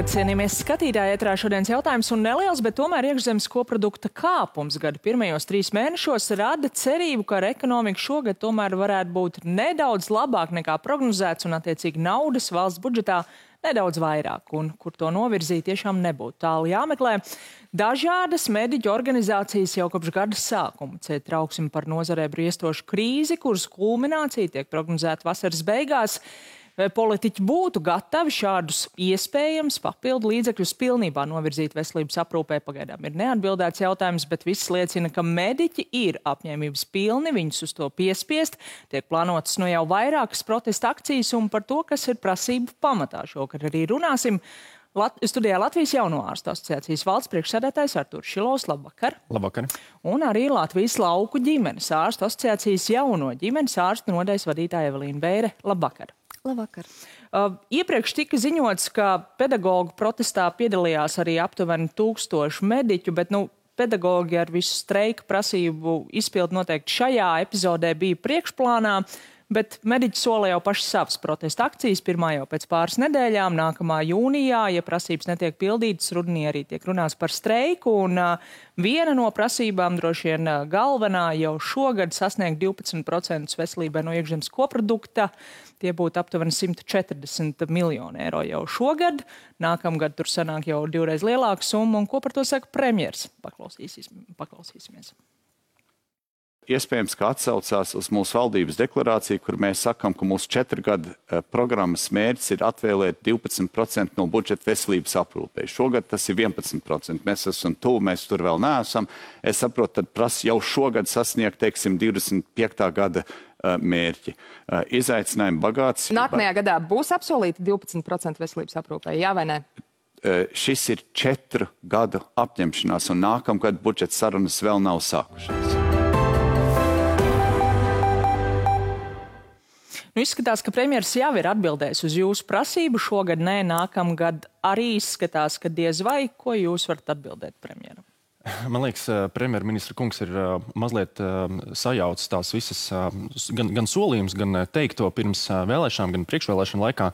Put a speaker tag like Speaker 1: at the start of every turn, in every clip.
Speaker 1: Labvakar, cienījamies skatītāji, ētrā šodienas jautājums un neliels, bet tomēr iekšzemes koprodukta kāpums gada pirmajos 3 mēnešos rada cerību, ka ar ekonomiku šogad tomēr varētu būt nedaudz labāk nekā prognozēts un attiecīgi naudas valsts budžetā nedaudz vairāk, un kur to novirzīt tiešām nebūtu tālu jāmeklē. Dažādas mediķu organizācijas jau kopš gada sākuma ciet trauksmi par nozarē briestošu krīzi, kuras kulminācija tiek prognozēta vasaras beigās. Vai politiķi būtu gatavi šādus iespējams papildu līdzekļus pilnībā novirzīt veselības aprūpē? Pagaidām ir neatbildēts jautājums, bet viss liecina, ka mediķi ir apņēmības pilni viņus uz to piespiest. Tiek plānotas no jau vairākas protesta akcijas, un par to, kas ir prasību pamatā, šokar arī runāsim. Studijā Latvijas Jauno ārstu asociācijas valsts priekšsēdētājs Artūrs Šilovs. Labvakar.
Speaker 2: Labvakar.
Speaker 1: Un arī Latvijas lauku ģimenes ārstu asociācijas jauno ģimenes ārstu nodaļas vadītāja Evelīna Beire. Labvakar.
Speaker 3: Labvakar.
Speaker 1: Iepriekš tika ziņots, ka pedagoģu protestā piedalījās arī aptuveni 1000 mediķu, bet pedagoģi ar visu streika prasību izpildu noteikti šajā epizodē bija priekšplānā, bet mediķi sola jau paši savas protesta akcijas, pirmā jau pēc pāris nedēļām, nākamā jūnijā, ja prasības netiek pildītas, rudenī arī tiek runāts par streiku, un viena no prasībām, droši vien galvenā, jau šogad sasniegt 12% veselībai no iekšzemes koprodukta. Tie būtu aptuveni 140 miljoni eiro jau šogad. Nākamgad tur sanāk jau 2 lielāka summa. Un ko par to saka premjers? Paklausīsimies.
Speaker 4: Iespējams, ka atsaucās uz mūsu valdības deklarāciju, kur mēs sakam, ka mūsu 4 gadu programmas mērķis ir atvēlēt 12% no budžeta veselības aprūpei. Šogad tas ir 11%. Mēs esam tuvu, mēs tur vēl neesam. Es saprotu, tad prasa jau šogad sasniegt, teiksim, 25. gada mērķi. Izaicinājumi bagāts.
Speaker 3: Nākamajā gadā būs apsolīti 12% veselības aprūpē, jā vai ne?
Speaker 4: Šis ir 4 gadu apņemšanās, un nākamgad budžeta sarunas vēl nav sākušās.
Speaker 1: Izskatās, ka premjers jau ir atbildējis uz jūsu prasību. Šogad nē, nākamgad arī izskatās, ka diez vai. Ko jūs varat atbildēt premjeram?
Speaker 2: Man liekas, premjerministra kungs ir mazliet sajaucis tās visas gan solījums, gan teikto pirms vēlēšanām, gan priekšvēlēšanu laikā.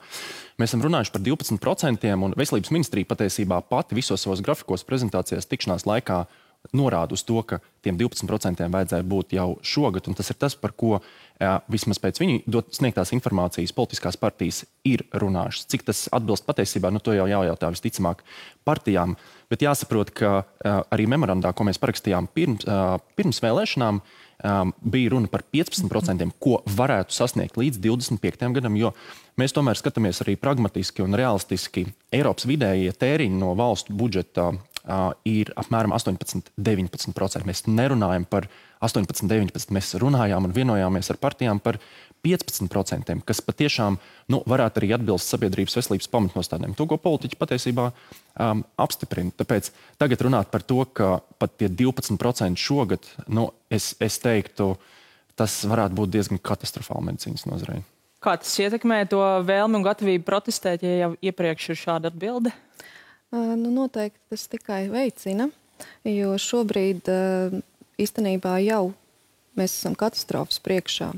Speaker 2: Mēs esam runājuši par 12%, un veselības ministrija patiesībā pati visos savos grafikos prezentācijās tikšanās laikā norāda uz to, ka tiem 12% vajadzēja būt jau šogad, un tas ir tas, par ko vismaz pēc viņu sniegtās informācijas politiskās partijas ir runājušas. Cik tas atbilst patiesībā, to jau jājautā visticamāk partijām, bet jāsaprot, ka arī memorandā, ko mēs parakstījām pirms vēlēšanām, bija runa par 15%, ko varētu sasniegt līdz 25. gadam, jo mēs tomēr skatāmies arī pragmatiski un realistiski. Eiropas vidējie tēriņi no valstu budžeta ir apmēram 18–19%. Mēs nerunājam par 18–19%, mēs runājām un vienojāmies ar partijām par 15%, kas patiešām varētu arī atbilst sabiedrības veselības pamatnostādēm. To, ko politiķi patiesībā apstiprina. Tāpēc tagad runāt par to, ka pat tie 12% šogad, es teiktu, tas varētu būt diezgan katastrofāli medicīnas nozarei.
Speaker 1: Kā tas ietekmē to vēlmi un gatavību protestēt, ja jau iepriekš ir šāda atbilde?
Speaker 5: Noteikti tas tikai veicina, jo šobrīd īstenībā jau mēs esam katastrofas priekšā.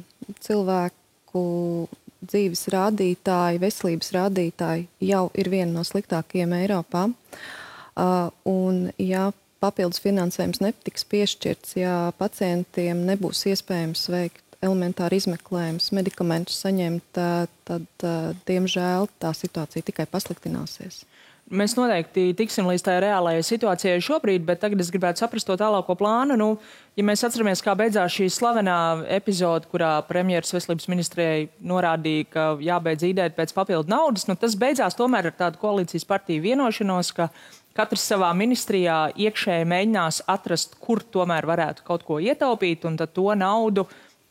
Speaker 5: Cilvēku dzīves rādītāji, veselības rādītāji jau ir viena no sliktākajiem Eiropā. Un ja papildus finansējums netiks piešķirts, ja pacientiem nebūs iespējams veikt elementāri izmeklējumus, medikamentus saņemt, tad, diemžēl, tā situācija tikai pasliktināsies.
Speaker 1: Mēs noteikti tiksim līdz tā reālajai situācijai šobrīd, bet tagad es gribētu saprast to tālāko plānu. Ja mēs atceramies, kā beidzās šī slavenā epizode, kurā premjeras veselības ministrijai norādīja, ka jābeidz īdēt pēc papildu naudas, tas beidzās tomēr ar tādu koalīcijas partiju vienošanos, ka katrs savā ministrijā iekšēji mēģinās atrast, kur tomēr varētu kaut ko ietaupīt, un tad to naudu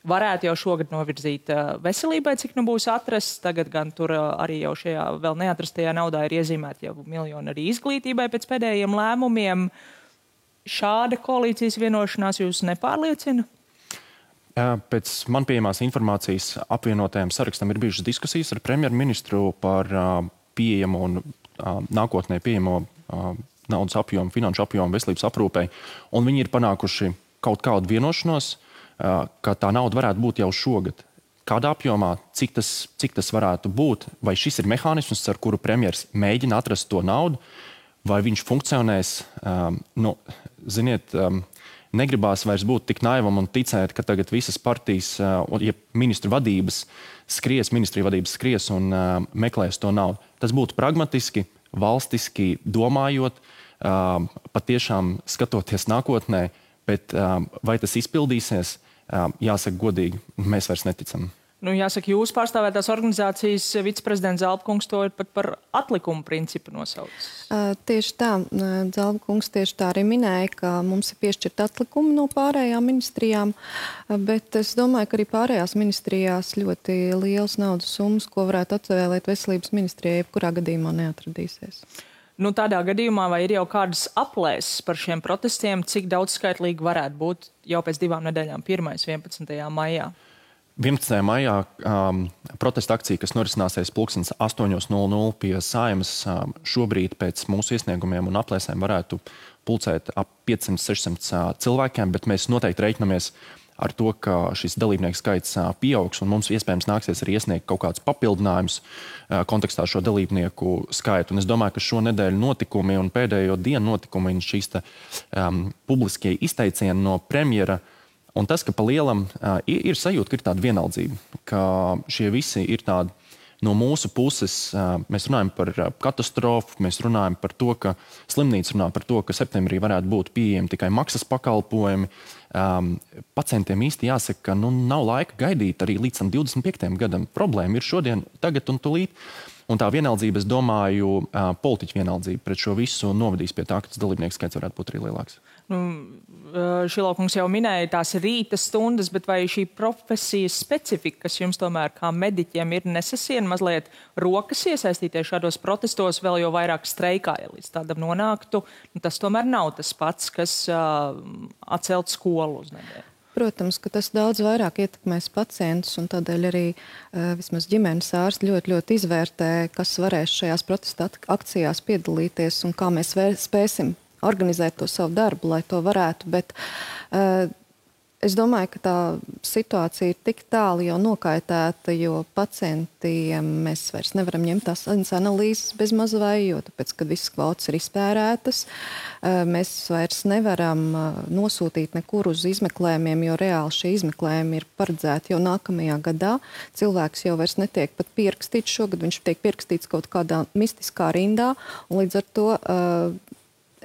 Speaker 1: varētu jau šogad novirzīt veselībai, cik būs atrasts. Tagad gan tur arī jau šajā vēl neatrastajā naudā ir iezīmēti jau miljoni arī izglītībai pēc pēdējiem lēmumiem. Šāda koalīcijas vienošanās jūs nepārliecina?
Speaker 2: Pēc man pieejamās informācijas apvienotajam sarakstam ir bijušas diskusijas ar premjerministru par pieejamo un nākotnē pieejamo naudas apjomu, finanšu apjomu veselības aprūpei, un viņi ir panākuši kaut kādu vienošanos, ka tā nauda varētu būt jau šogad. kādā apjomā, cik tas varētu būt, vai šis ir mehānisms, ar kuru premjers mēģina atrast to naudu, vai viņš funkcionēs, negribās vairs būt tik naivam un ticēt, ka tagad visas partijas, ja ministriju vadības skries un meklēs to naudu. Tas būtu pragmatiski, valstiski domājot, patiešām skatoties nākotnē, bet vai tas izpildīsies, jāsaka godīgi, mēs vairs neticam.
Speaker 1: Jāsaka, jūs pārstāvētās organizācijas viceprezidents Zalbkungs to ir pat par atlikumu principu nosaucis.
Speaker 5: Tieši tā, Zalbkungs tieši tā arī minēja, ka mums ir piešķirt atlikumi no pārējām ministrijām, bet es domāju, ka arī pārējās ministrijās ļoti liels naudas summas, ko varētu atvēlēt veselības ministrijai, jebkurā gadījumā neatradīsies.
Speaker 1: Tādā gadījumā vai ir jau kādas aplēses par šiem protestiem, cik daudz skaitlīgi varētu būt jau pēc 2 nedēļām, 11. maijā?
Speaker 2: 11. maijā protesta akcija, kas norisināsies 8:00 pie Saeimas, šobrīd pēc mūsu iesniegumiem un aplēsēm varētu pulcēt ap 500-600 cilvēkiem, bet mēs noteikti reiķinamies ar to, ka šis dalībnieku skaits pieaugs, un mums iespējams nāksies arī iesniegt kaut kādus papildinājumus kontekstā šo dalībnieku skaitu. Un es domāju, ka šo nedēļu notikumi un pēdējo dienu notikumi un šīs publiskie izteicieni no premjera, un tas, ka pa lielam ir sajūta, ka ir tāda vienaldzība, ka šie visi ir tādi no mūsu puses. Mēs runājam par katastrofu, mēs runājam par to, ka slimnīca runā par to, ka septembrī varētu būt pieejami tikai maksas pakalpojumi. Pacientiem īsti jāsaka, ka nav laika gaidīt arī līdz 25. gadam. Problēma ir šodien, tagad un tulīt. Un tā vienaldzība, es domāju, politiķu vienaldzība pret šo visu novadīs pie tā, ka tas dalībnieku skaits varētu būt arī lielāks.
Speaker 1: Šilokungs jau minēja tās rīta stundas, bet vai šī profesijas specifika, kas jums tomēr kā mediķiem ir nesasien mazliet rokas iesaistīties šādos protestos, vēl jau vairāk streikā, ja līdz tādam nonāktu, tas tomēr nav tas pats, kas atcelt skolu uz nedēļu?
Speaker 5: Protams, ka tas daudz vairāk ietekmēs pacientus, un tādēļ arī vismaz ģimenes ārsti ļoti izvērtē, kas varēs šajās protesta akcijās piedalīties un kā mēs spēsim organizēt to savu darbu, lai to varētu, bet es domāju, ka tā situācija ir tik tālu jau nokaitēta, jo pacientiem mēs vairs nevaram ņemt tās analīzes bez mazvai, jo tāpēc, kad visas kvotas ir izpērētas, mēs vairs nevaram nosūtīt nekur uz izmeklējumiem, jo reāli šie izmeklējumi ir paredzēti jau nākamajā gadā. Cilvēks jau vairs netiek pat pierakstīts šogad, viņš tiek pierakstīts kaut kādā mistiskā rindā, un līdz ar to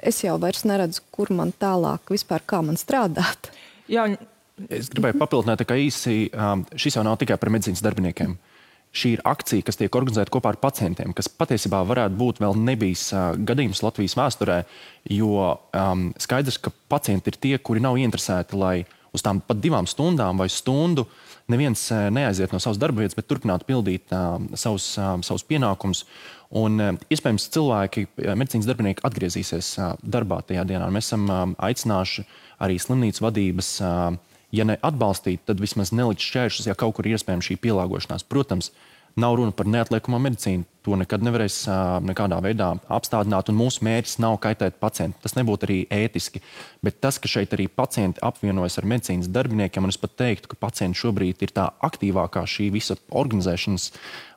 Speaker 5: es jau vairs neredzu, kur man tālāk vispār kā man strādāt.
Speaker 1: Jā.
Speaker 2: Es gribēju papildināt tā kā īsi, šis jau nav tikai par medicīnas darbiniekiem. Šī ir akcija, kas tiek organizēta kopā ar pacientiem, kas patiesībā varētu būt vēl nebijis gadījums Latvijas vēsturē, jo skaidrs, ka pacienti ir tie, kuri nav ieinteresēti, lai uz tām pat 2 stundām vai stundu neviens neaiziet no savas darba vietas, bet turpinātu pildīt savus pienākumus. Un iespējams cilvēki, medicīnas darbinieki atgriezīsies darbā tajā dienā. Mēs esam aicinājuši arī slimnīcu vadības, ja ne atbalstīt, tad vismaz nelikt šķēršus, ja kaut kur ir iespējams šī pielāgošanās. Protams, nav runa par neatliekamo medicīnu. To nekad nevarēs nekādā veidā apstādināt, un mūsu mērķis nav kaitēt pacientu. Tas nebūtu arī ētiski. Bet tas, ka šeit arī pacienti apvienojas ar medicīnas darbiniekiem, un es pat teiktu, ka pacienti šobrīd ir tā aktīvākā šī visa organizēšanas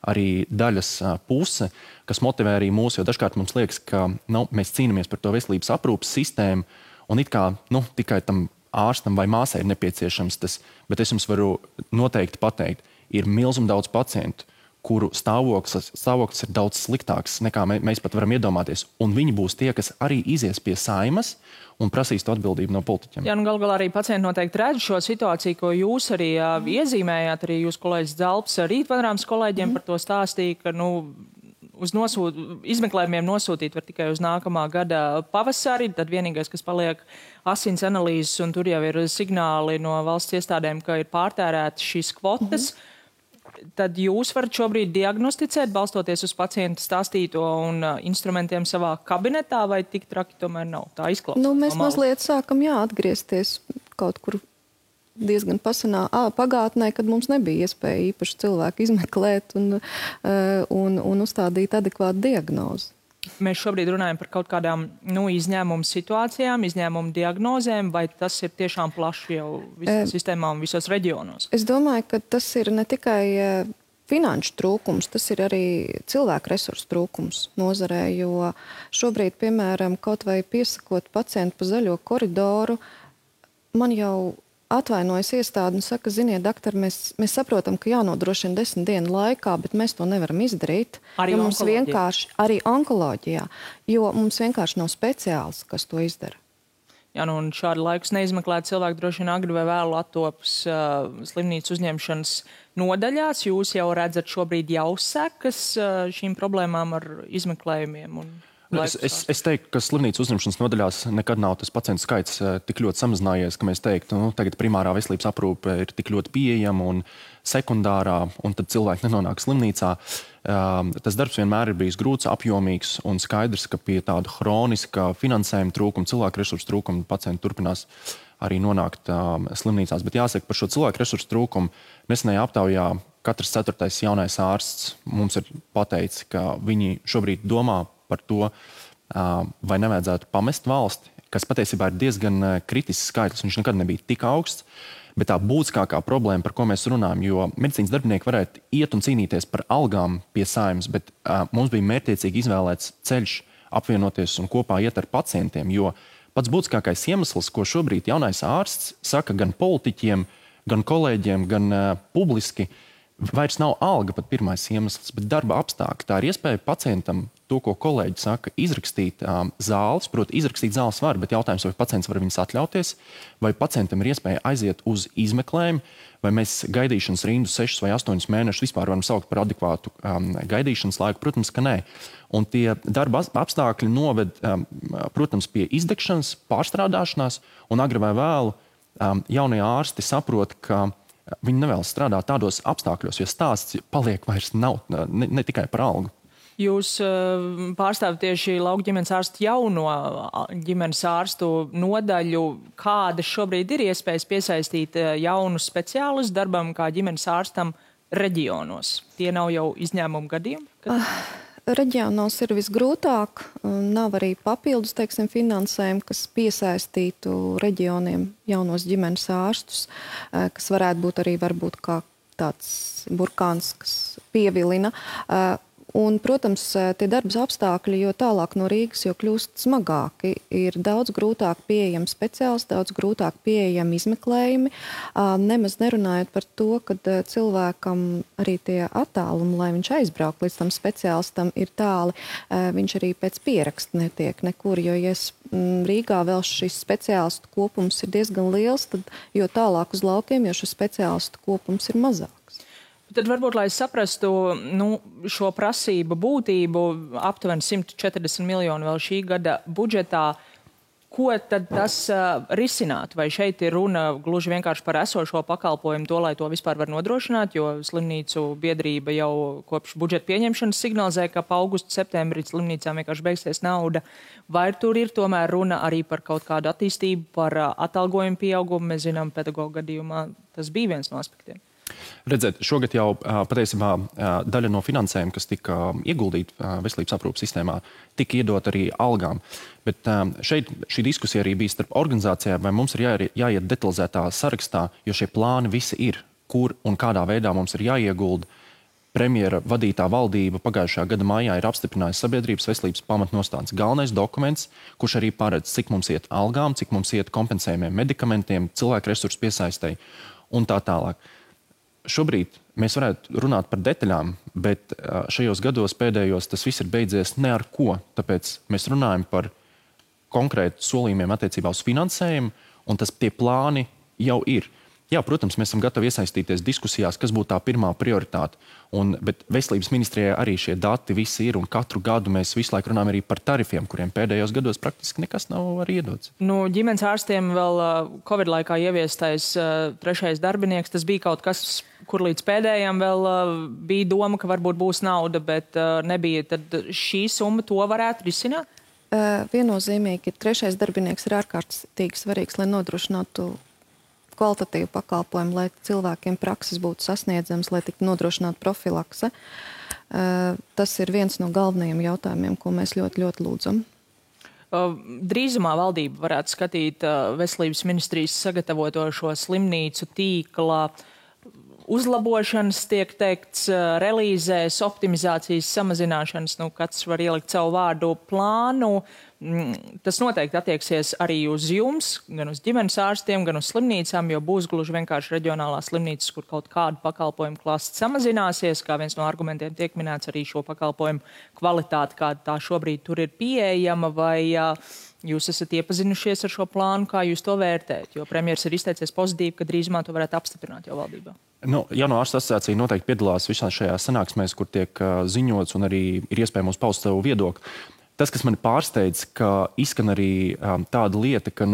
Speaker 2: arī daļas puse, kas motivē arī mūs, jo dažkārt mums liekas, ka mēs cīnāmies par to veselības aprūpas sistēmu, un it kā tikai tam ārstam vai māsai ir nepieciešams tas, bet es jums varu noteikti pateikt, ir milzīgi daudz pacientu, kuru stāvoklis ir daudz sliktāks, nekā mēs pat varam iedomāties. Un viņi būs tie, kas arī izies pie Saeimas un prasīs to atbildību no politiķiem.
Speaker 1: Jā, gal galā arī pacienti noteikti redz šo situāciju, ko jūs arī iezīmējāt, arī jūs kolēģis Zalbs Rītpanorāmas kolēģiem par to stāstīja, ka uz izmeklējumiem nosūtīt var tikai uz nākamā gada pavasari, tad vienīgais, kas paliek asins analīzes, un tur jau ir signāli no valsts iestādēm, ka ir pārtērētas šīs kvotas. Tad jūs varat šobrīd diagnosticēt, balstoties uz pacienta stāstīto un instrumentiem savā kabinetā, vai tik traki tomēr nav? Tā izklausās.
Speaker 5: Mēs mazliet sākam atgriezties kaut kur diezgan pasenā pagātnē, kad mums nebija iespēja īpaši cilvēku izmeklēt un uzstādīt adekvātu diagnozi.
Speaker 1: mēs šobrīd runājam par kaut kādām izņēmumu situācijām, izņēmumu diagnozēm, vai tas ir tiešām plaši jau visā sistēmā un visos reģionos?
Speaker 5: Es domāju, ka tas ir ne tikai finanšu trūkums, tas ir arī cilvēku resursu trūkums nozarē, jo šobrīd, piemēram, kaut vai piesakot pacientu pa zaļo koridoru, man jau atvainojas iestāde un saka, ziniet, doktori, mēs saprotam, ka jānodrošina 10 dienu laikā, bet mēs to nevaram izdarīt.
Speaker 1: Arī onkoloģijā.
Speaker 5: Arī onkoloģijā, jo mums vienkārši nav speciāls, kas to izdara.
Speaker 1: Jā, un šādu laikus neizmeklēt cilvēku droši vien agri vai vēlu attopas slimnīcu uzņemšanas nodaļās. Jūs jau redzat šobrīd jau sekas šīm problēmām ar izmeklējumiem un
Speaker 2: Es teiktu, ka slimnīcu uzņemšanas nodaļās nekad nav tas pacientu skaits tik ļoti samazinājies, ka mēs teiktu, tagad primārā veselības aprūpe ir tik ļoti pieejama un sekundārā, un tad cilvēki nenonāk slimnīcā. Tas darbs vienmēr ir bijis grūts, apjomīgs un skaidrs, ka pie tāda hroniska finansējuma trūkuma, cilvēku resursu trūkuma pacienti turpinās arī nonākt slimnīcās. Bet jāsaka, par šo cilvēku resursu trūkumu nesenajā aptaujā katrs 4. jaunais ārsts mums ir pateicis, ka viņi šobrīd domā par to, vai nevajadzētu pamest valsti, kas patiesībā ir diezgan kritisks skaitlis. Viņš nekad nebija tik augsts, bet tā būtiskākā problēma, par ko mēs runājam, jo medicīnas darbinieki varētu iet un cīnīties par algām pie Saeimas, bet mums bija mērķtiecīgi izvēlēts ceļš apvienoties un kopā iet ar pacientiem, jo pats būtiskākais iemesls, ko šobrīd jaunais ārsts saka gan politiķiem, gan kolēģiem, gan publiski, vairs nav alga pat pirmais iemesls, bet darba apstākļi. Tā ir iespēja pacientam to, ko kolēģi saka, izrakstīt zāles. Proti, izrakstīt zāles var, bet jautājums, vai pacients var viņas atļauties, vai pacientam ir iespēja aiziet uz izmeklējumu, vai mēs gaidīšanas rindu 6 vai 8 mēnešus vispār varam saukt par adekvātu gaidīšanas laiku. Protams, ka nē. Un tie darba apstākļi noved, protams, pie izdegšanas, pārstrādāšanās, un agri vai vēlu jaunie ārsti saprot, ka viņi nevēlas strādāt tādos apstākļos, jo stāsts paliek vairs nav ne tikai par algu.
Speaker 1: Jūs pārstāvat tieši lauku ģimenes ārstu jauno ģimenes ārstu nodaļu. Kādas šobrīd ir iespējas piesaistīt jaunus speciālistus darbam kā ģimenes ārstam reģionos? Tie nav jau izņēmumu gadījumi?
Speaker 5: Reģionos ir visgrūtāk. Nav arī papildus, finansējumu, kas piesaistītu reģioniem jaunos ģimenes ārstus, kas varētu būt arī varbūt kā tāds burkāns, kas pievilina. Un, protams, tie darbas apstākļi, jo tālāk no Rīgas, jo kļūst smagāki, ir daudz grūtāk pieejami speciālisti, daudz grūtāk pieejami izmeklējumi. Nemaz nerunājot par to, ka cilvēkam arī tie attālumi, lai viņš aizbrauk līdz tam speciālistam, ir tāli. Viņš arī pēc pieraksta netiek nekur, jo, ja Rīgā vēl šis speciālistu kopums ir diezgan liels, tad jo tālāk uz laukiem, jo šis speciālistu kopums ir mazāk.
Speaker 1: Tad varbūt, lai saprastu šo prasību būtību, aptuveni 140 miljoni vēl šī gada budžetā, ko tad tas risinātu? Vai šeit ir runa gluži vienkārši par esošo pakalpojumu, to, lai to vispār var nodrošināt, jo slimnīcu biedrība jau kopš budžeta pieņemšanas signalizē, ka pa augustu, septembrī slimnīcām vienkārši beigsies nauda. Vai tur ir tomēr runa arī par kaut kādu attīstību, par atalgojumu pieaugumu? Mēs zinām, pedagoģa gadījumā tas bija viens no aspektiem.
Speaker 2: Redzēt, šogad jau patiesībā daļa no finansējuma, kas tika ieguldīta veselības aprūpes sistēmā, tika iedot arī algām. Bet šeit šī diskusija arī bija starp organizācijām, vai mums ir jāiet detalizētā sarakstā, jo šie plāni visi ir, kur un kādā veidā mums ir jāiegulda. Premjera vadītā valdība pagājušā gada maijā ir apstiprinājusi sabiedrības veselības pamatnostādes galvenais dokuments, kurš arī paredz, cik mums iet algām, cik mums iet kompensējumiem medikamentiem, cilvēku resursu piesaistei un tā tālāk. Šobrīd mēs varētu runāt par detaļām, bet šajos gados pēdējos tas viss ir beidzies ne ar ko. Tāpēc mēs runājam par konkrētu solījumiem attiecībā uz finansējumu, un tie plāni jau ir. Jā, protams, mēs esam gatavi iesaistīties diskusijās, kas būtu tā pirmā prioritāte. Bet veselības ministrijai arī šie dati visi ir, un katru gadu mēs visu laiku runājam arī par tarifiem, kuriem pēdējos gados praktiski nekas nav arī iedots.
Speaker 1: Ģimenes ārstiem vēl Covid laikā ieviestais 3. darbinieks, tas bija kaut kas, kur līdz pēdējiem vēl bija doma, ka varbūt būs nauda, bet nebija. Tad šī summa to varētu risināt?
Speaker 5: Viennozīmīgi, 3. darbinieks ir ārkārtīgi svarīgs, lai nodrošinātu kvalitatīvu pakalpojumu, lai cilvēkiem prakses būtu sasniedzams, lai tiktu nodrošināta profilakse. Tas ir viens no galvenajiem jautājumiem, ko mēs ļoti, ļoti lūdzam.
Speaker 1: Drīzumā valdība varētu skatīt veselības ministrijas sagatavoto šo slimnīcu tīkla uzlabošanas, tiek teikts, relīzēs, optimizācijas, samazināšanas, katrs var ielikt savu vārdu plānu. Tas noteikti attieksies arī uz jums, gan uz ģimenes ārstiem, gan uz slimnīcām, jo būs gluži vienkārši reģionālās slimnīcas, kur kaut kādu pakalpojumu klāsts samazināsies, kā viens no argumentiem tiek minēts arī šo pakalpojumu kvalitāti, kāda tā šobrīd tur ir pieejama, vai jūs esat iepazinušies ar šo plānu, kā jūs to vērtējat, jo premjers ir izteicies pozitīvi, ka drīzumā to varētu apstiprināt jau valdībā.
Speaker 2: Jauno ārstu asociācija noteikti piedalās visās šajās sanāksmēs, kur tiek ziņots un arī ir iespējams paust savu viedokli. Tas, kas mani pārsteidz, ka izskan arī tāda lieta, ka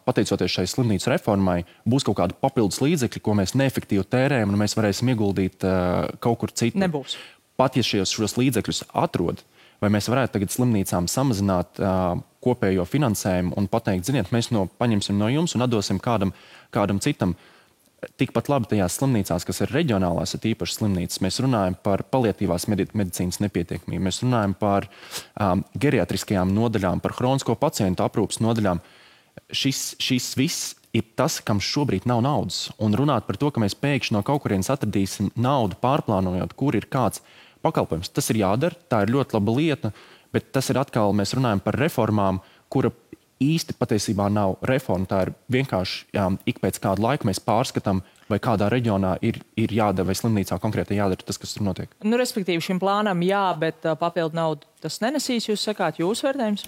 Speaker 2: pateicoties šai slimnīcu reformai, būs kaut kāda papildus līdzekļi, ko mēs neefektīvi tērējam, un mēs varēsim ieguldīt kaut kur citur.
Speaker 1: Nebūs.
Speaker 2: Pat ja šos līdzekļus atrod, vai mēs varētu tagad slimnīcām samazināt kopējo finansējumu un pateikt, ziniet, mēs paņemsim no jums un atdosim kādam citam. Tikpat labi tajās slimnīcās, kas ir reģionālās, ir īpaši slimnīcas, mēs runājam par paliatīvās medicīnas nepietiekamību, mēs runājam par geriatriskajām nodaļām, par hronisko pacientu aprūpas nodaļām. Šis viss ir tas, kam šobrīd nav naudas. Un runāt par to, ka mēs pēkšņi no kaut kurienes atradīsim naudu pārplānojot, kur ir kāds pakalpojums. Tas ir jādara, tā ir ļoti laba lieta, bet tas ir atkal, mēs runājam par reformām, kura īsti patiesībā nav reforma. Tā ir vienkārši ik pēc kāda laika mēs pārskatām, vai kādā reģionā ir jādara, vai slimnīcā konkrēti jādara tas, kas tur notiek.
Speaker 1: Respektīvi šim plānam jā, bet papildu naudu tas nenesīs, jūs sakāt, jūsu vērtējums?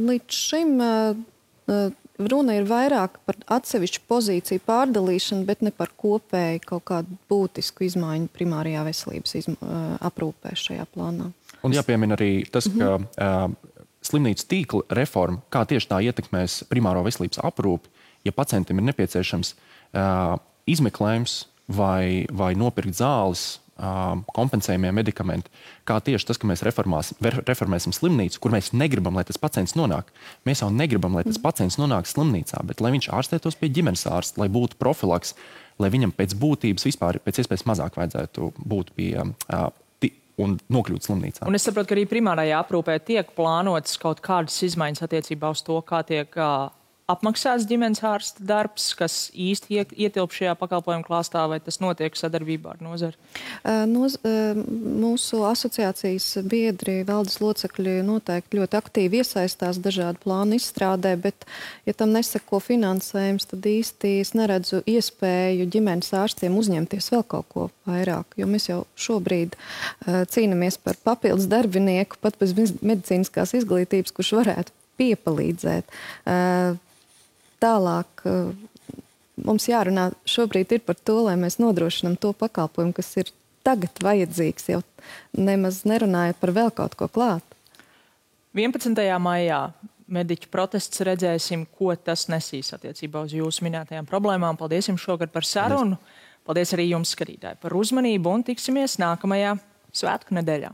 Speaker 5: Līdz šim runa ir vairāk par atsevišķu pozīciju pārdalīšanu, bet ne par kopēju kaut kādu būtisku izmaiņu primārajā veselības aprūpē šajā plānā.
Speaker 2: Un jāpiemina arī tas, ka slimnīcu tīkla reforma, kā tieši tā ietekmēs primāro veselības aprūpi, ja pacientam ir nepieciešams izmeklējums vai nopirkt zāles, kompensējumie medikamenti, kā tieši tas, ka mēs reformēsim slimnīcu, kur mēs negribam, lai tas pacients nonāk. Mēs jau negribam, lai tas pacients nonāk slimnīcā, bet lai viņš ārstētos pie ģimenes ārsta, lai būtu profilaks, lai viņam pēc būtības vispār pēc iespējas mazāk vajadzētu būt pie un nokļūt slimnīcā.
Speaker 1: Un es saprotu, ka arī primārajā aprūpē tiek plānotas kaut kādas izmaiņas attiecībā uz to, kā tiek apmaksāts ģimenes ārsta darbs, kas īsti ietilp šajā pakalpojumu klāstā, vai tas notiek sadarbībā ar nozari?
Speaker 5: Mūsu asociācijas biedri, valdes locekļi noteikti ļoti aktīvi iesaistās dažādu plānu izstrādē, bet, ja tam neseko finansējums, tad īsti es neredzu iespēju ģimenes ārstiem uzņemties vēl kaut ko vairāk, jo mēs jau šobrīd cīnamies par papildus darbinieku, pat bez medicīniskās izglītības, kurš varētu piepalīdzēt. Tālāk mums jārunā šobrīd ir par to, lai mēs nodrošinām to pakalpojumu, kas ir tagad vajadzīgs, jau nemaz nerunājot par vēl kaut ko klāt.
Speaker 1: 11. maijā mediķu protests, redzēsim, ko tas nesīs attiecībā uz jūsu minētajām problēmām. Paldies jums šogad par sarunu. Paldies arī jums, skatītāji, par uzmanību un tiksimies nākamajā svētku nedēļā.